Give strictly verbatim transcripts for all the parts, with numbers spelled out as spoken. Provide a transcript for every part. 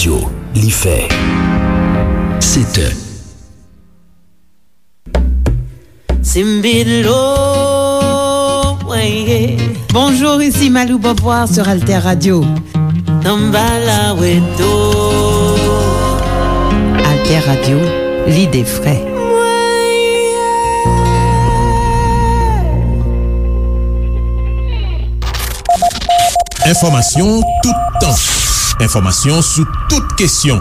Li fè sèt è. Simbilo, weye. Bonjour, ici Malou Beauvoir sur Alter Radio. Tambala weto. Alter Radio, l'idée vraie. Enfòmasyon toutan. Enfòmasyon sou tout kesyon.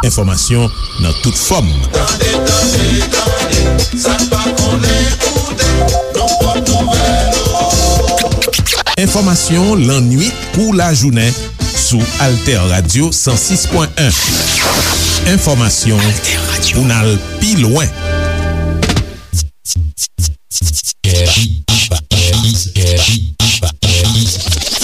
Enfòmasyon nan tout fòm. Tande, tande, tande, sa n pa konnen koute, nan pòt nouvèl yo. Enfòmasyon lannwit kou lajounen sou Alter Radio san sis pwen en. Enfòmasyon pou n al pi lwen.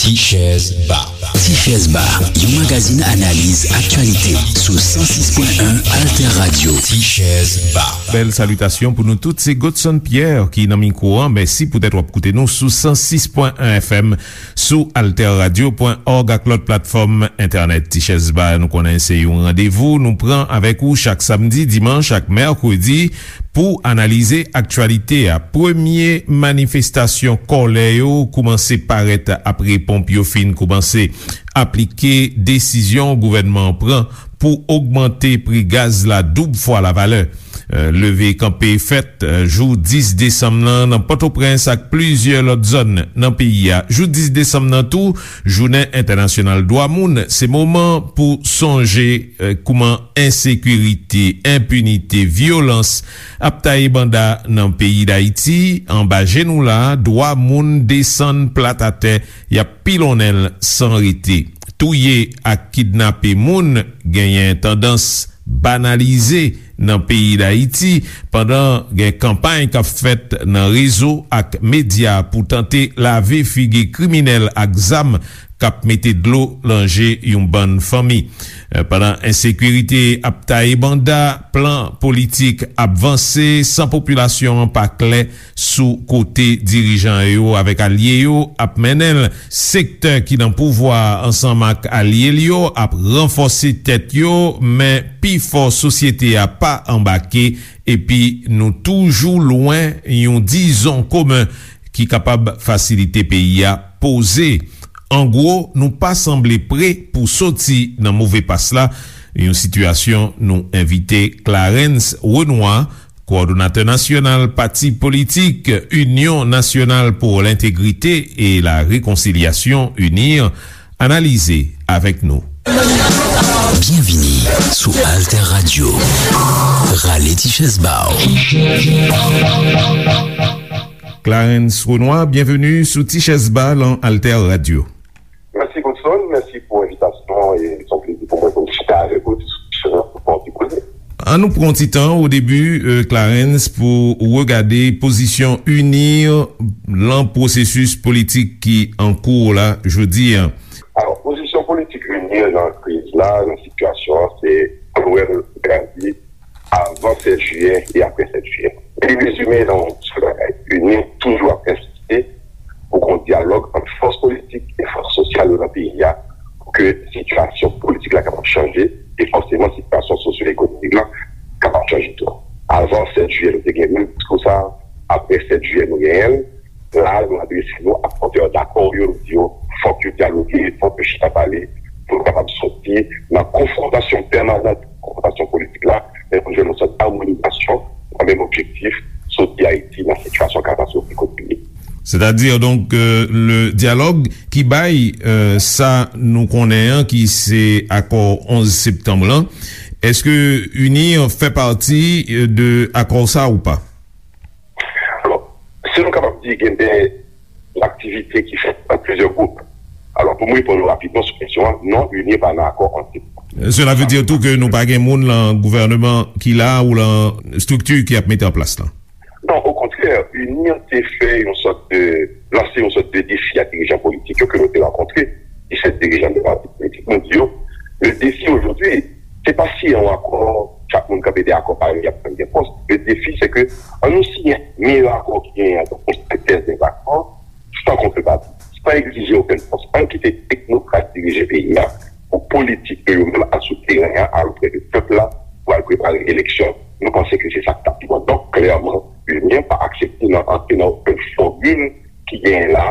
Tichèz Ba. Tichèz Ba, yon magazin analiz aktyalite sou san sis pwen en Alter Radio. Tichèz Ba. Bèl salitasyon pou nou tout. Se Godson Pierre ki nan mikwo an. Mèsi poutèt w ap koute nou sou san sis pwen en F M, sou alter radio pwen òg ak lòt platfòm entènèt. Tichèz Ba, nou konnen se yon randevou nou pran avèk ou chak samdi, dimanch ak mèkredi pou analize aktyalite a. Premye manifestasyon kòlè yo koumanse parèt apre ponp yo fin koumanse aplike desizyon gouvènman an pran pou ogmante pri gaz la doub fwa lavalè. Euh, leve kanpe fèt, euh, jou dis desanm nan, nan Pòtoprens ak plizyè lòt zòn nan peyi a. Jou dis desanm nan tou, jounen entènasyonal dwa moun, se moman pou sonje, euh, kouman ensekirite, enpinite, vyolans ap taye banda nan peyi Dayiti. Anba je nou la, dwa moun desann plat atè, y ap pilonnen l san rete. Touye ak kidnape moun genyen tandans banalize nan peyi Dayiti, pandan gen kanpay k ap fèt nan rezo ak medya pou tante lave figi kriminèl ak zam k ap mete dlo nan je yon bann fanmi. Eh, pandan ensekirite ap taye banda, plan politik ap vanse san popilasyon an pa klè sou kote dirijan yo avèk alye yo ap mennen l. Sektè ki nan pouvwa a ansanm ak alye l yo ap ranfòse tèt yo, men pifò sosyete a pa anbake, epi nou toujou lwen yon dizon komen ki kapab fasilite peyi a poze. An gwo, nou pa sanble pre pou soti nan move pas la, yon sitiyasyon nou envite Clarens Renois, kowòdonatè nasyonal pati politik Union Nationale pour l'Intégrité et la Réconciliation, UNIR, analize avèk nou. Byenvini sou Alter Radio. Rale ti chèz ba w. Clarens Renois, byenveni sou Ti Chèz Ba lan Alter Radio. Mèsi, Godson. Mèsi pou envitasyon an. E se yon plezi pou mwen pou m chita avèk ou, diskisyon an, pou pran ti koze. An nou pran ti tan o debi, euh, Clarens, pou regade pozisyon UNIR lan pwosesis politik ki an kou la jodi a. Alò, pozisyon politik UNIR lan kriz la, lan sitiyasyon an, se Noël Gazi, avan sèt jiyè e apre sèt jiyè. Li rezime nan yon sèl bagay. UNIR toujou ap ensiste pou gen yon dyalòg ant fòs politik e fòs sosyal yo nan peyi a pou ke sitiyasyon politik la kapab chanje e fòseman sitiyasyon sosyo-ekonomik la kapab chanje tou. Avan sèt jiyè, nou te gen menm diskou sa a. Apre sèt jiyè, nou genyen l. La, nou adrese nou ak pòtè dakò yo, nou di yo, fòk yo dyaloge, fòk yo chita pale, pou nou kapab soti nan konfwontasyon pèmanan, konfwontasyon politik la, men pou nou jwenn yon sòt amonizasyon nan menm objektif, soti Ayiti nan sitiyasyon katastwofik kote li ye. Sètadi, donk, euh, le dyalòg ki bay, euh, sa nou konnen an, ki se akò onz septanm lan, èske UNIR fè pati, euh, de akò sa ou pa? Alò, si nou kapab di gen de aktivite ki fèt nan plizyè gwoup. Alò, pou m reponn ou rapidman sou kesyon an, non, UNIR pa nan akò antre. Cela veut dire tou ke nou pa gen moun lan gouvèneman ki la ou lan estrikti ki ap mete an plas lan? Non, okontrè, UNIR te fè yon sòt de, lanse yon sòt de defi a dirijan politik yo ke nou te rankontre, disèt dirijan de pati politik. Nou di yo, le défi aujourd'hui, se pa si yon akò, chak moun kanpe dèyè akò pa yo, y ap jwenn gen pòs. Le défi, se ke an nou siyen meyè akò ki genyen an, donk yon sentèz de akò, san kontrepati, san egzije okenn pòs. Ann kite teknokrat dirije peyi a, politik yo, yo menm al sou teren an, al oprè de pèp la, pou al prepare eleksyon. Nou panse ke se sa k t ap pi bon. Donk, klèman, UNIR pa aksepte nan antre nan okenn fòmil ki genyen la,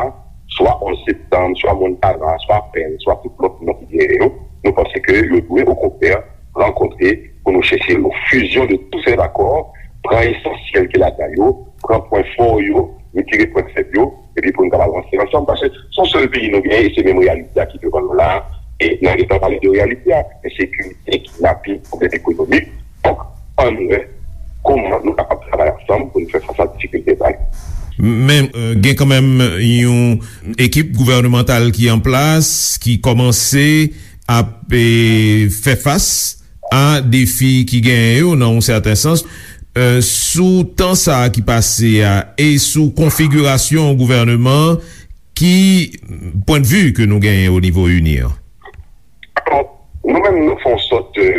swa onz septanm, swa Montana, swa Pèn, swa tout lòt non ki genyen yo. Nou panse ke yo dwe, okontrè, rankontre pou nou chèche yon fusion de tous ces accords, pran esansyèl ki ladan yo, pran pwen fò yo, retire pwen fèb yo, epi pou nou kapab avanse ansanm, paske se yon sèl peyi nou genyen, e se menm reyalite a ki devan nou la a, e n a gentan pale de reyalite a, ensekirite, kidnaping, pwoblèm ekonomik. Donk, ann wè kòman nou kapab travay ansanm pou nou fè fas a difikilte sa yo. Men, euh, gen kanmenm yon ekip gouvènemantal ki an plas, ki kòmanse ap, eh, fè fas a defi ki genyen yo, nan yon sèten sans, euh, sou tan sa a ki pase a e sou konfigirasyon gouvèneman an, ki pwennvi ke nou genyen o nivo UNIR? Alò, nou menm, nou fè yon sòt de,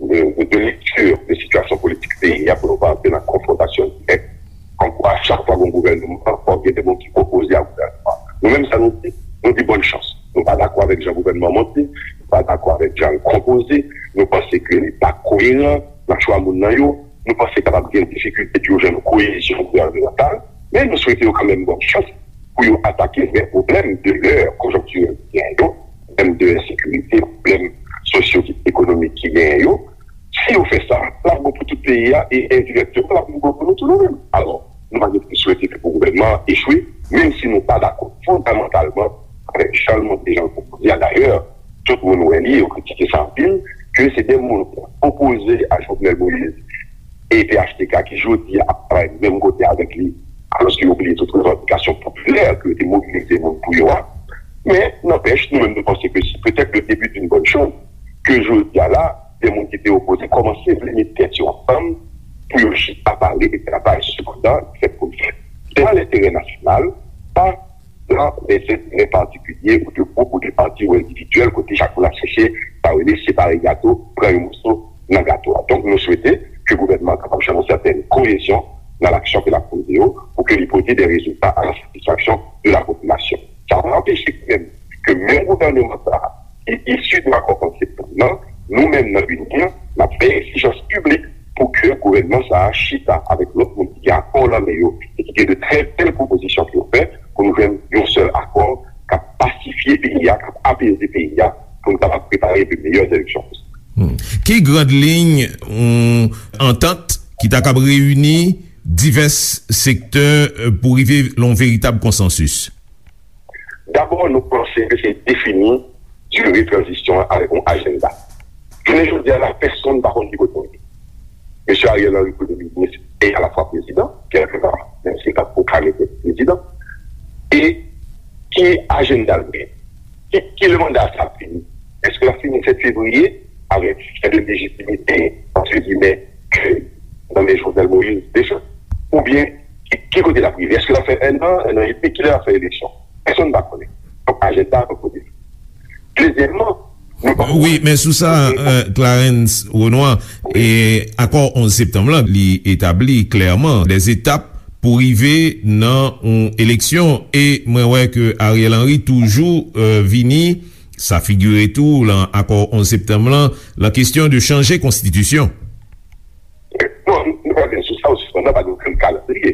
de, de, de lekti de sitiyasyon politik peyi a pou nou pa antre nan konfwontasyon dirèk. Kòmkwa, chak fwa gen yon gouvènman, fòk gen de moun ki opoze a gouvènman. Nou menm, sa nou di, nou di bòn chans. Nou pa dakò avèk jan gouvènman an monte, nou pa dakò avèk jan l konpoze, nou panse ke li pa koyeran nan chwa moun nan yo, nou panse kapab gen difikilte pou yo jwenn yon koyezyon gouvènemantal, men nou swete yo kanmenm bòn chans pou yo atake vrè pwoblèm de lè konjonktirèl ki genyen yo, pwoblèm de ensekirite, pwoblèm sosyo-ekonomik ki genyen yo. Si yo fè sa, l ap bon pou tout peyi a e endirèkteman, l ap bon pou nou tou nou menm. Alò, nou pa gen pou swete ke pou gouvènman an echwe, menm si nou pa dakò fondamantalman avèk jan l monte, jan l konpoze a. Dayè, tout moun wè li, yo kritike sa anpil, ke se de moun ki opoze a Jovenel Moïse e P H T K ki jodi a ap travay menm kote avèk li, alòske yo bliye tout revandikasyon popilè ke yo te mobilize moun pou yo a. Men, nanpèch, nou menm nou panse ke se petèt le début d'une bonne chose ke jodi a la, de moun ki te opoze kòmanse vle met tèt yo ansanm pou yo chita pale e travay. Sepandan, fèt pou l fèt, se nan lenterè nasyonal, pa nan lè enterè patikilye ou de gwoup ou de pati ou endividyèl, kote chak moun ap chèche sa yo rele separe gato, pran yon moso nan gato a. Donk, nou swete ke gouvènman an kapab jwenn yon sètèn koyezyon nan laksyon ke l ap poze yo, pou ke li pote de rezilta a la satisfaksyon de la popilasyon. Sa pa anpeche menm ke menm gouvènman sa a, ki isi de akò onz septanm nan, nou menm nan UNIR, n ap fè egzijans piblik pou ke gouvènman sa a chita avèk lòt moun ki gen akò nan men yo e ki gen de trè bèl pwopozisyon pou yo fè, pou nou jwenn yon sèl akò k ap pasifye peyi a, k ap apeze peyi a, pou nou kapab prepare de meyè eleksyon posib. Hmm. Ki grand liy yon antant ki ta kab reyini divès sektè, euh, pou rive nan yon veritab konsansis? Dabò, nou panse ke se defini dire tranzisyon an avèk yon ajanda. Jounen jodi a la, pèsonn pa konn ki kote nou ye. Mesye Ariel Henry, premye minis e alafwa prezidan, kèlkepar, menm si l pa t pwoklame tèt li prezidan. E ki ajanda l genyen? Ki, ki lè manda sa ap fini? Èske l ap fini sèt fevriye avèk sèten lejitimite, antre gimè, ke nan men Jovenel Moïse deja? Oubyen, ki, ki kote l ap rive? Èske l ap fè enn an, enn an edmi? Kilè l ap fè eleksyon? Pèsonn pa konnen. Donk, ajanda an kote. Dezyèmman, nou pa... Wi, men sou sa, euh, Clarens Renois, e akò onz septanm lan, li etabli klèman de etap pou rive nan yon eleksyon. E mwen wè ke Ariel Henry toujou, euh, vini, sa figire tou lan akò onz septanm lan, lan kesyon de chanje konstitisyon. Bon, nou, nou pa vin sou sa, ou sispann nan, pa gen okenn kalandriye.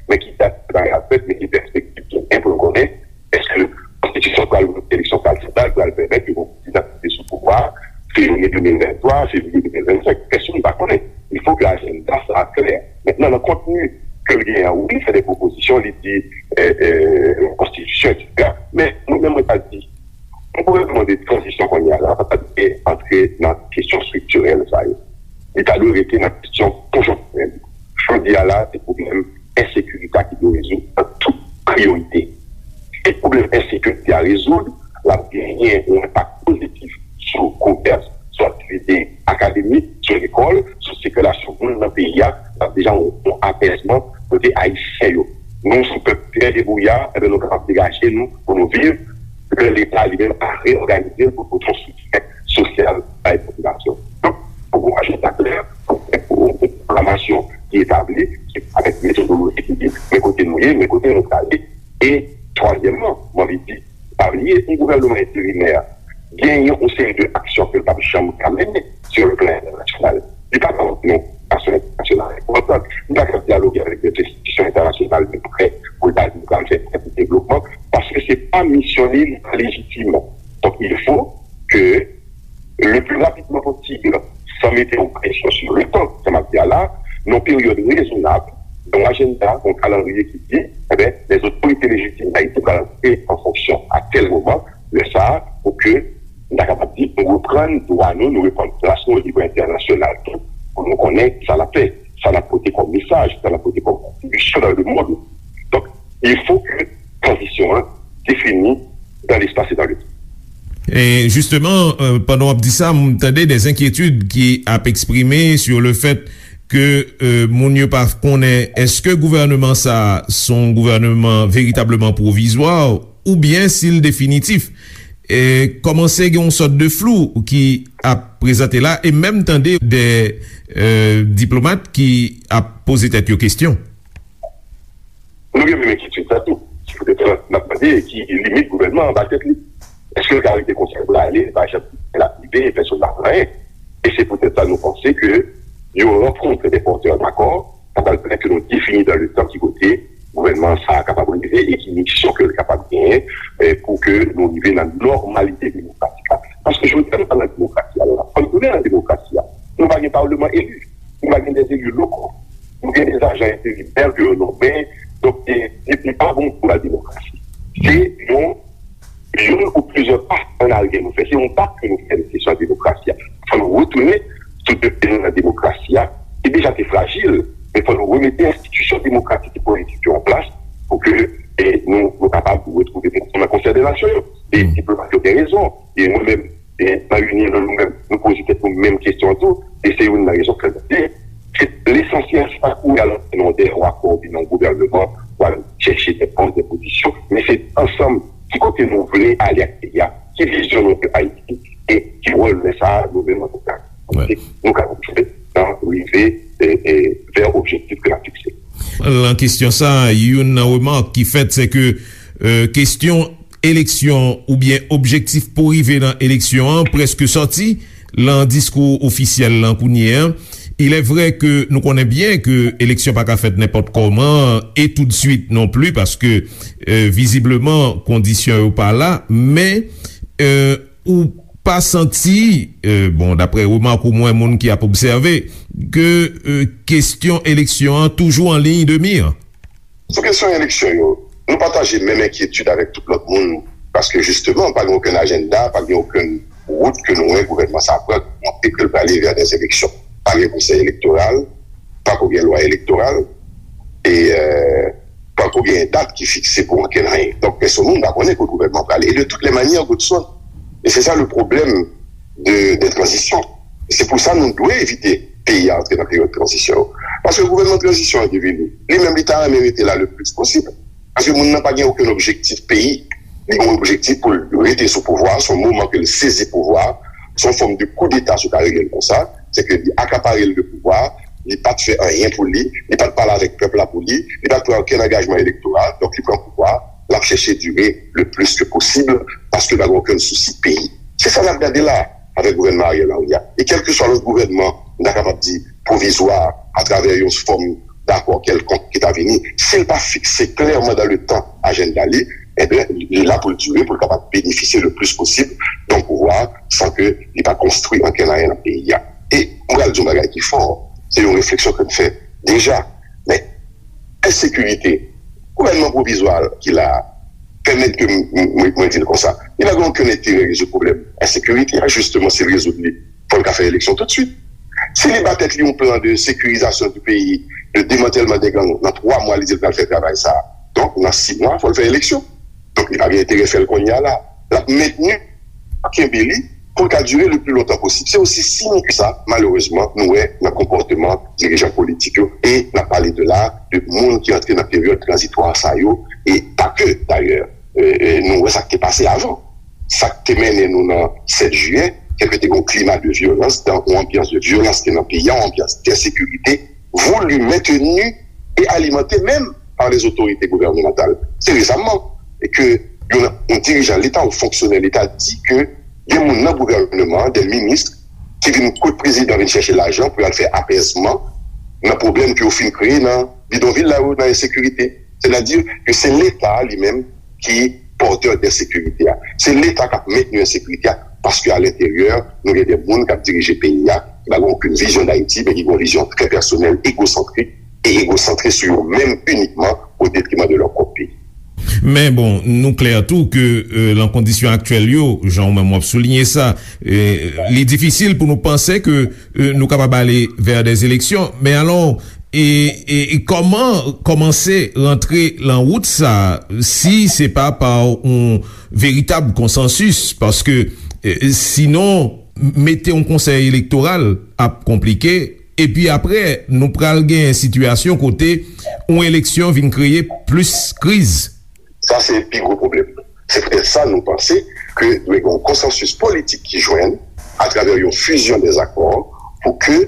Men ki dat bagay ap fèt, men ki pèspektiv ki gen pou nou konnen, èske konstitisyon pral, eleksyon pral fèt la, pral pèmèt ke yon prezidan ki te sou pouvwa a, fevriye de mil venntwa, fevriye de mil vennsenk, pèsonn pa konnen. Il faut que ajanda sa a klè. Mentnan, nan kontni ke l genyen an, wi, li fè de pwopozisyon, li di, euh, euh, konstitisyon, etsetera. Men, mwen menm, mwen ta di, yon gouvènman de tranzisyon kounye a la, pa ta dwe antre nan kesyon estriktirèl sa yo. Li ta dwe rete nan kesyon konjonktirèl. Jodi a la, se pwoblèm ensekirite a ki dwe rezoud an tout priyorite. Si pwoblèm ensekirite a rezoud, l ap genyen yon enpak pozitif sou komès, sou aktivite akademik, sou lekòl, sou sikilasyon moun nan peyi a. L ap deja yon, yon apèzman kote Ayisyen yo. Nou, se yon pèp trè debouya, enben, nou kapab degaje nou pou nou viv, lè Leta li menm a reyòganize l pou pote yon soutyen sosyal bay popilasyon. Donk, fòk gon ajanda klè, fòk gen yon pwoklamasyon ki etabli, ki, avèk metodoloji ki di, men kote nou ye, men kote nou prale. E twazyèmman, mwen anvi di, pa bliye, yon gouvènman enterimè, genyen yon seri de aksyon ke l p ap janm ka mennen sou le plan entènasyonal. Li pa ka antre nan yon aksyon entènasyonal enpòtan. Li pa ka dyaloge avèk de enstitisyon entènasyonal de prè pou l ta di l pral fè prè pou devlopman, paske se pa misyon li, li pa lejitim. Donk, il faut que le plus rapidement possible, sans mettre une pression sur le temps, sa m ap di a la, nan yon peryòd rezonab, nan yon ajanda, nan yon kalandriye ki di, eh ben, les autorités légitimes d'Haïti pral antre an fonksyon a tèl moman, lè sa a, pou ke nou ta kapab di, nou reprann dwa nou, nou reprann plas nou o nivo entènasyonal tou, pou nou konnen sa n ap fè, sa n ap pote kòm mesaj, sa n ap pote kòm kontribisyon dans le monde. Donc, il faut que transition an définie dans l'espace et dans le temps. E jisteman, euh, pandan w ap di sa, m tande des inquiétudes ki ap eksprime sur le fait ke, euh, moun yo pa konnen èske gouvènman sa a se yon gouvèman veritableman pwovizwa oubyen si l definitif. E kòmanse gen yon sòt de flou ki ap prezante la, e menm tande de, euh, diplomat ki ap poze tèt yo kesyon. Nou gen menm enkyetid sa tou. Se poutèt sa n ap mande ki limit gouvènman an ba tèt li. Èske l ka rete konsa pou l ale, li pa janm fè l ap rive, pèsonn pa fè anyen? E se poutèt sa nou panse ke yon rankontre de pòtè dakò, sa pral pèmèt ke nou defini dans le temps ki kote gouvènman sa a kapab rive e ki misyon ke l kapab genyen, eh, pou ke nou rive nan nòmalite demokratik la. Paske jodi a nou pa nan demokrasi a la. Fò nou tounen nan demokrasi a. Nou pa gen palman eli. Nou pa gen de eli lokal. Nou gen de ajan enterimè ke yo nonmen. Donk, e, e, li pa bon pou la demokrasi. Se yon, youn ou plizyè pa an aryè nou fè. Se yon bak ke nou fè nan kesyon demokrasi a. Fò nou retounen sou de pye nou nan demokrasi a, ki deja te frajil, men fò nou remete enstitisyon demokratik e politik yo an plas pou ke, e, nou, nou kapab retwouve nou nan konsè de nasyon yo. E diplomat yo gen rezon. E mwen menm, e, Marie-Line, nou menm, nou poze tèt nou menm kesyon an tou, e se youn nan rezon ke nou di, se lesansyèl, se pa kouri al antre nan de yon akò oubyen nan yon gouvènman pou al chèche de pòs, de pozisyon, men se ansanm ki kote nou vle ale ak peyi a, ki vizyon nou de Ayiti, e ki wòl lè sa a nou menm antanke politik nou ka jwe nan rive, e, e, vè objektif ke n ap fikse. Nan kesyon sa, youn nan remak ki fèt, se ke, euh, kesyon eleksyon oubyen objektif pou rive nan eleksyon an prèske sòti nan diskou ofisyèl lan kounye a. Il est vrai ke nou konnen byen ke eleksyon pa ka fèt nenpòt kòman e toutswit non pli, paske, euh, vizibleman, kondisyon yo pa la, men, euh, ou pa santi, euh, bon, daprè remak ou mwen, moun ki ap obsève, ke, euh, kesyon eleksyon an toujou an liy de mi? Sou kesyon eleksyon yo, nou pataje menm enkyetid avèk tout lòt moun, paske jisteman, pa gen okenn ajanda, pa gen okenn wout ke nou wè gouvènman sa a pran, ki montre ke l prale vè dè eleksyon. Pa gen konsèy elektoral, pa ko gen lwa elektoral, e, euh, pa ko gen dat ki fikse pou okenn anyen. Donk, pèsonn moun pa konnen kote gouvènman prale. E de toutes les manières, Godson, e se sa le pwoblèm de, de tranzisyon. Se pou sa nou dwe evite peyi a antre nan peryòd tranzisyon yo. Paske gouvènman tranzisyon an ki vini, li menm li ta renmen rete la le plis posib. Paske moun nan pa gen okenn objektif peyi. Li gen yon objektif pou l rete sou pouvwa, se yon moman ke l sezi pouvwa, se yon fòm de koudeta si w ka rele l konsa, se ke li akapare l de pouvwa, li pa t fè anyen pou li, li pa t pale avèk pèp la pou li, li pa t pran okenn angajman elektoral, donk li pran pouvwa, l ap chèche dire le plis ke posib, paske l pa gen okenn sousi peyi. Se sa n ap gade la avèk gouvènman Ariel Henry a. E kèlkeswa lòt gouvènman, nou ta kapab di pwovizwa, atravè yon fòm dakò kèlkonk ki ta vini, si l pa fikse klèman dan le tan ajanda li, ebyen, li la pou l dire, pou l kapab benefisye le plis posib de yon pouvwa san ke li pa konstwi ankenn anyen nan peyi a. E mwen pral di yon bagay ki fò, se yon refleksyon ke m fè deja, men ensekirite, gouvènman pwovizwa ki la a, pèmèt ke m, m, mwen, mwen di l konsa, li pa gen okenn enterè rezoud pwoblèm ensekirite a, jisteman, si l rezoud li, fò l ka fè eleksyon toutswit. Si li ba tèt li yon plan de sécurisation du pays, de démantèlman de gang, nan twa mwa, li di l pral fè travay sa a. Donk, nan sis mwa, fò l fè eleksyon. Donk, li pa gen enterè fè l kounye a la. L ap mentni, kenbe li, pou l ka dire le pli lontan posib. Se osi simp ke sa, malerezman, nou wè nan konpòteman dirijan politik yo. E n ap pale de la, de moun ki antre nan peryòd tranzitwa sa yo, e pa ke, dayè, e, e, nou wè sa k te pase avan. Sa k te mennen nou nan sèt jiyè, kèlke te gen yon klima de vyolans, dan yon anbyans de vyolans ki te nan peyi a, yon anbyans densekirite, voulu, maintenu et alimenté même par les autorités gouvernementales. Se resaman ke yon, yon dirijan Leta, yon fonksyonè Leta di ke Gen moun nan gouvènman an, de minis, ki vin kot prezidan, vin chèche lajan pou y al fè apèzman nan pwoblèm ke yo fin kreye nan bidonvil la yo, nan ensekirite. Sètadi ke se Leta a li menm ki pòtè de ensekirite a. Se Leta k ap mentni ensekirite a, paske a lenteryè, nou gen de moun k ap dirije peyi a, ki pa gen okenn vizyon d Ayiti, men ki gen yon vizyon trè pèsonèl, egosantrik, e egosantre sou yo menm inikman, o detriman de lè pwòp peyi. Men bon, nou klè tou ke euh, nan kondisyon aktyèl yo, jan ou menm w ap souliye sa, euh, li difisil pou nou panse ke euh, nou kapab ale vè de eleksyon. Men alò, e, e, e kòman kòmanse rantre lan wout sa, si se pa pa yon veritab konsansis? Paske euh, sinon, mete yon konsèy elektoral ap konplike, epi apre, nou pral gen sitiyasyon kote yon eleksyon vin kreye plis kriz. Sa se pi gwo pwoblèm. Se poutèt sa nou panse ke dwe gen yon konsansis politik ki jwenn atravè yon fizyon dèzakò pou ke